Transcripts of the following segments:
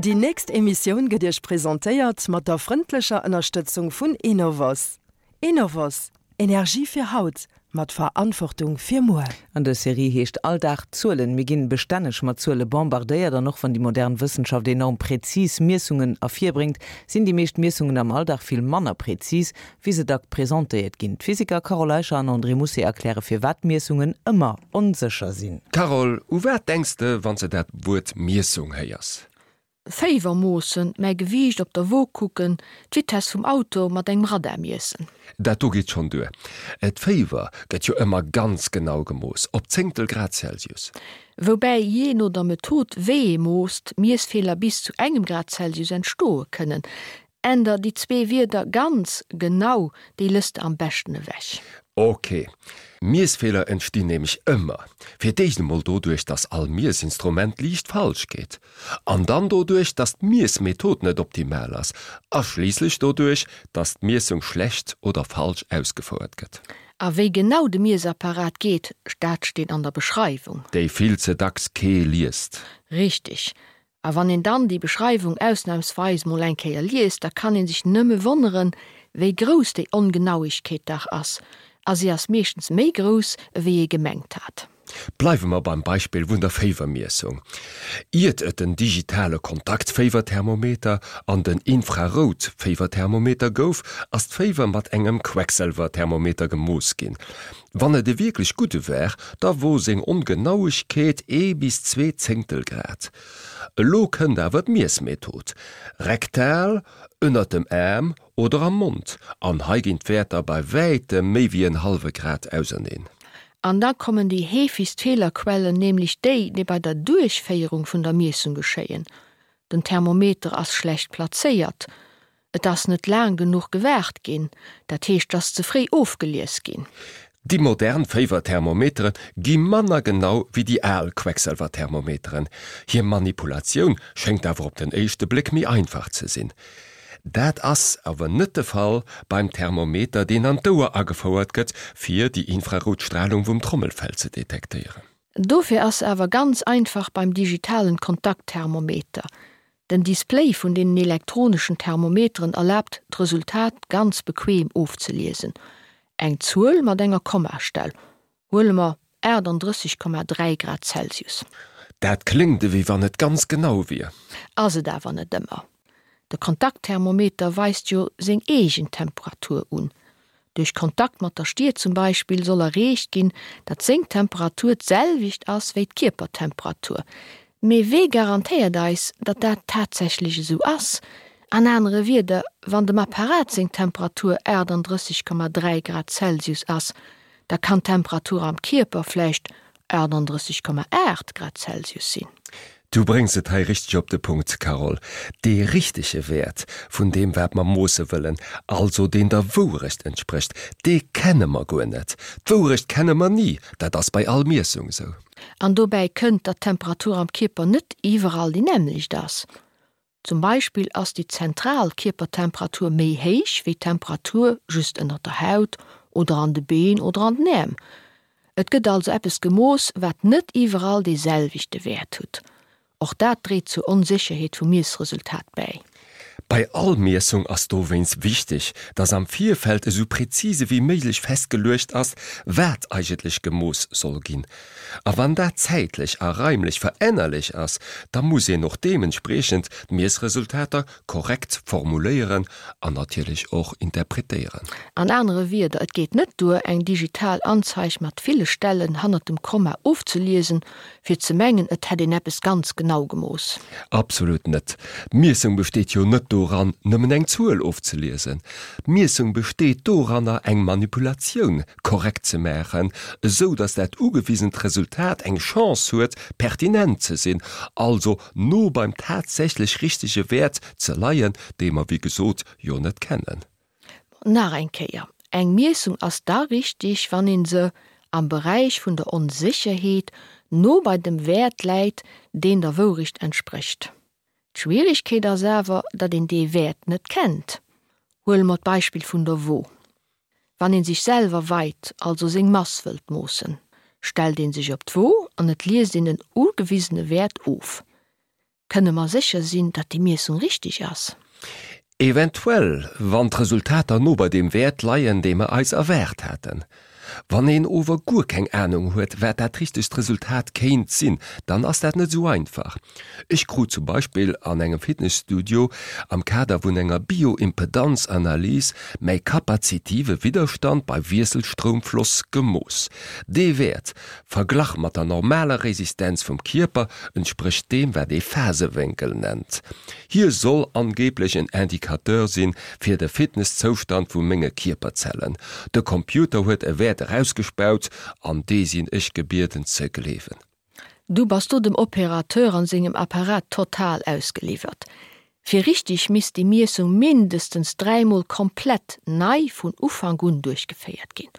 Déi nächst Emissioun gëtt Iech presentéiert mat der frëndlecher Ënnerstëtzung vun Enovos. Enovos, Energie fir haut, mat Verantwortung fir muer. An dës Serie heescht All Dag Zuelen. Mir ginn bestänneg mat Zuele bombardéiert an och wann déi modern Wëssenschaft enorm präzis Miessungen ervirbréngt, sinn déi meescht Miessungen am Alldag vill manner präzis, wéi se dack presentéiert ginn. D'Physiker Carole Eicher an André Mousset erkläre firwat Miessungen ëmmer onsécher sinn. Carole, u wat denks de, wann s de dat Wuert Miessung héiers? Féiwer moossen, mäi Gewiicht op der Wo kucken, d'Vitess vum Auto mat engem Radar miessen. Dat do geet schonn duer. D'Féiwer gëtt jo ëmmer ganz genau gemooss, op Zéngtel Grad Celsius. Woubäi jee no der Method wéi ee moosst, Miessfeeler bis zu engem Grad Celsius entstoe kënnen. Änder déi zwee Wierder ganz genau, déi lëss de am beschten ewech. Ok. Miessfeeler entstinn nämlech ëmmer. Fir d'éischt emol doduerch, dass all Miessinstrument liicht falsch geet. An dann doduerch, dass d'Miessmethod net optimal ass. A schliisslech doduerch, dass d'Miessung schlecht oder falsch ausgefouert gëtt. A wéi genau de Miessapparat geet, dat steet an der Beschreiwung. Déi vill ze dacks kee liest. Richteg. A wann een dann déi Beschreiwung ausnahmsweis mol eng Kéier liest, da kann een sech nëmme wonneren, wéi grouss déi Ongenauigkeet dach ass. A si ass meeschtens méi grouss, ewéi ee gemengt hat. Bleiwe mer beim Beispill vun der Féiwermiessung. Iert et den digitale Kontaktféiwerthermometer an den Infrarout-Féiwerthermometer gouf, ass d'Féiwer mat engem Quecksëlwerthermometer gemooss ginn. Wann et e wierklech gudde war, da wor seng Ongenauegkeet ee bis zwee Zéngtel Grad. Elo kënnt awer d'Miessmethod, rektal, ënnert dem Aarm oder am Mond, an hei ginn d'Wäerter bei wäitem méi wéi en hallwe Grad auserneen. An da kommen déi heefegst Feelerquellen, nämlech déi, déi bei der Duerchféierung vun der Miessung geschéien. Den Thermometer ass schlecht plazéiert, Et ass net laang genuch gewaart ginn, dat heescht, et ass ze fréi ofgelies ginn. Déi modern Féiwerthermometere gi manner genau wéi déi al Queckselwerthermometeren. Hir Manipulatioun schéngt awer op den éischte Bléck méi einfach ze sinn. Dat ass awer net de Fall beim Thermometer, deen an d'Ouer agefouert gëtt, fir déi infrarout Stralung vum Trommelfell ze detektéieren. Dofir ass se awer ganz einfach beim digitalen Kontaktthermometer. Den Display vun deenen elektroneschen Thermometeren erlaabt d'Resultat ganz bequem ofzeliesen. Eng Zuel mat enger Kommastell, huele mer 38,3 Grad Celsius. Dat kléngt ewéi wann et ganz genau wier. Ass et awer net ëmmer. De Kontaktthermometer weist jo seng eegen Temperatur un. Duerch Kontakt mat der Stier zum Beispill soll erreecht ginn, datt seng Temperatur d'selwecht ass wéi d'Kierpertemperatur. Mee wee garantéiert eis, datt dat tatsächlech esou ass? An anere Wierder, wann dem Apparat seng Temperatur 38,3 Grad Celsius ass, da kann d'Temperatur am Kierper vläicht 38,8 Grad Celsius sinn. Du bréngs et hei richteg op de Punkt, Carole. Dee richtege Wäert vun deem wat mer moosse wëllen, also deen der Wourecht entsprécht, dee kenne mer guer net. D'Wourecht kenne mer ni, dat ass bei all Miessung esou. An dobäi kënnt, datt d'Temperatur am Kierper net iwwerall déi nämmlecht ass. Zum Beispill ass déi zentral Kierpertemperatur méi héich wéi d'Temperatur just ënnert der Haut oder an de Been oder an den Äerm. Et gëtt also eppes gemooss, wat net iwwerall dee selwechte Wäert hutt. Och dat dréit zur Onsécherheet vum Miessresultat bäi. Bei all Miessung ass dowéinst wichteg, dass am Virfeld esou präzise wéi méiglech festgeluecht ass, wat eigentlech gemooss soll ginn. A wann dat zäitlech a raimlech verännerlech ass, da muss een och deementspriechend d'Miessresultater korrekt formuléieren an natierlech och interpretéieren. An anere Wierder, et geet net duer, eng digital Anzeig mat ville Stellen hannert dem Komma ofzeliesen, fir ze mengen, et hätt een eppes ganz genau gemooss. Absolut net. D'Miessung besteet jo net doran, nëmmen eng Zuel ofzeliesen. D'Miessung besteet doranner, eng Manipulatioun korrekt ze maachen, esou datt dat ugewisent Resultat eng Chance huet, pertinent ze sinn, also no beim tatsächlech richtege Wäert ze leien, dee mer wéi gesot jo net kennen. Nach eng Kéier, Eng Miessung ass da richtig, wann ee se am Beräich vun der Onsécherheet no bei dem Wäert läit, deen der Wourecht entsprécht. D'Schwieregkeet ass awer, datt een dee Wäert net kennt. Huele mer d'Beispill vun der Wo. Wann een sech selwer weit, also seng Mass wëllt moossen, stellt een sech op d'Wo an et liest een en ugewisene Wäert of. Kënne mer sécher sinn, datt déi Miessung richteg ass? Eventuell, wann d'Resultater no bei deem Wäert leien, dee mer eis erwaart haten. Wann een ower guer keng Anung huet, wat dat richtegt Resultat kéint sinn, dann ass dat net esou einfach. Ech krut zum Beispill an engem Fitnesstudio am Kader vun enger Bioimpedanzanalys mäi kapazitive Widderstand bei Wiesselstroumfloss gemooss. Dee Wäert, verglach mat der normaler Resistenz vum Kierper, entsprécht deem, wat ee Phasewénkel nennt. Hie soll angeblech en Indicateur sinn fir de Fitnesszoustand vu menge Kierperzellen. De Computer huet e Wäert erausgespaut an dee sinn ech gebieden ze gleewen. Du bass do dem Opérateur an sengem Apparat total ausgeliwwert. Fir richteg misst déi Miessung mindestens dräimol komplett nei vun Ufank un duerchgeféiert ginn.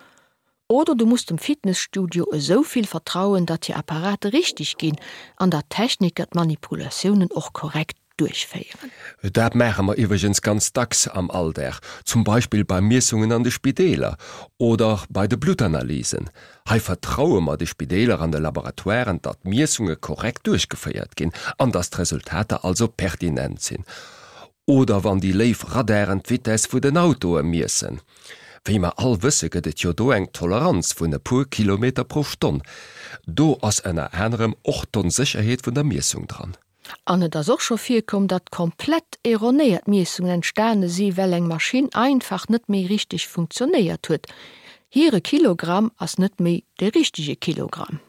Oder du muss dem Fitnesstudio esou vill vertrauen, datt hir Apparate richteg ginn an datt d'Techniker d'Manipulatiounen och korrekt duerchféieren. Dat maache mer iwwregens ganz dacks am Alldag, zum Beispill bei Miessungen an de Spideeler oder bei de Bluttanalysen. Hei vertraue mer de Spideeler an de Laboratoiren, datt d'Miessunge korrekt duerchgeféiert ginn an datt d'Resultater also pertinent sinn. Oder wann déi léif Radaren d'Vitess vu den Autoe miessen. Wéi mer all wësse gëtt et jo do eng Toleranz vun e puer Kilometer pro Stonn. Do ass ënner anerem och d'Onsécherheet vun der Miessung dran. An et ass och scho virkomm, datt komplett erronéiert Miessungen entstane si well eng Maschinn einfach net méi richteg funktionéiert huet. Hire Kilogramm ass net méi de richtege Kilogramm.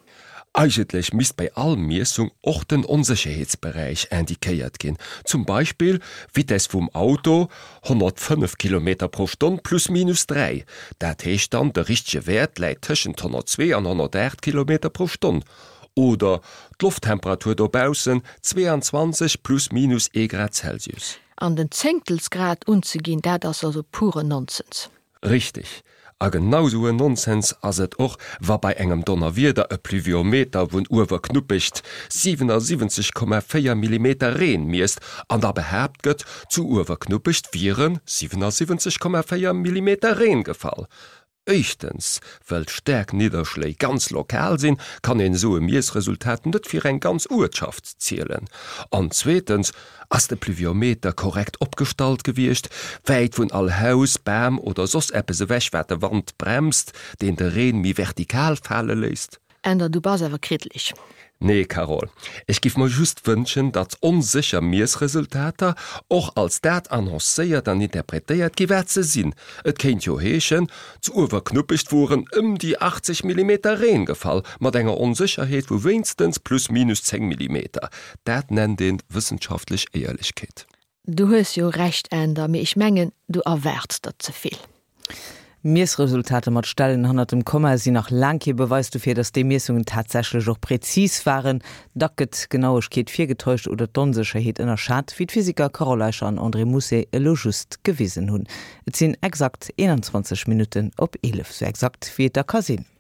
Eigentlech misst bei all Miessung och den Onsécherheetsberäich indiquéiert ginn, zum Beispill Vitess vum Auto 105 Kilometer pro Stonn plus minus 3, dat heescht dann de richtege Wäert läit tëschent 102 an 108 Kilometer pro Stonn, oder d'Lofttemperatur dobaussen 22 plus minus ee Grad Celsius. An den Zéngtelsgrad unzeginn, dat ass also puren Nonsens. Richteg. A genau sou en Nonsens ass et och, wa bei engem Donnerwieder e Pluviometer vun Uewerknuppecht 77,4 Millimeter Reen miesst an da behaapt gëtt, zu Uewerknuppecht wiere 77,4 Millimeter Reen gefall. Éischtens, well staark Nidderschléi ganz lokal sinn, kann een esou e Miessresultat net fir eng ganz Uertschaft zielen. An zweetens, ass de Pluviometer korrekt opgestallt gewiescht, wäit vun all Haus, Bam oder soss eppes ewech wat de Wand bremst, deen de Reen méi vertikal fale léisst? Änder, du bass awer kriddleg. Nee Carole, ech giff mer just wënschen, datt onsécher Miessresultater och als dat annoncéiert an interpretéiert gi wat se sinn. Et kéint jo heeschen, zu Uewerknuppecht woren ëm déi 80 Millimeter Reen gefall, mat enger Onsécherheet vu wéinstens plus minus 10 Millimeter. Dat nennt een wëssenschaftlech Éierlechkeet. Du hues jo Recht Änder, mee ech mengen du erwaards der zevill. Miessresultater mat Stellen hannert dem Komma sinn nach laang kee Beweis dofir, datt déi Miessungen tatsächlech och präzis waren. Dack gëtt d'Genauegkeet virgetäuscht oder d'Onsécherheet ënnerschat, wéi d'Physiker Carole Eicher an André Mousset elo just gewisen hunn. Et sinn exakt 21 Minutten op 11, sou exakt wéi et da ka sinn.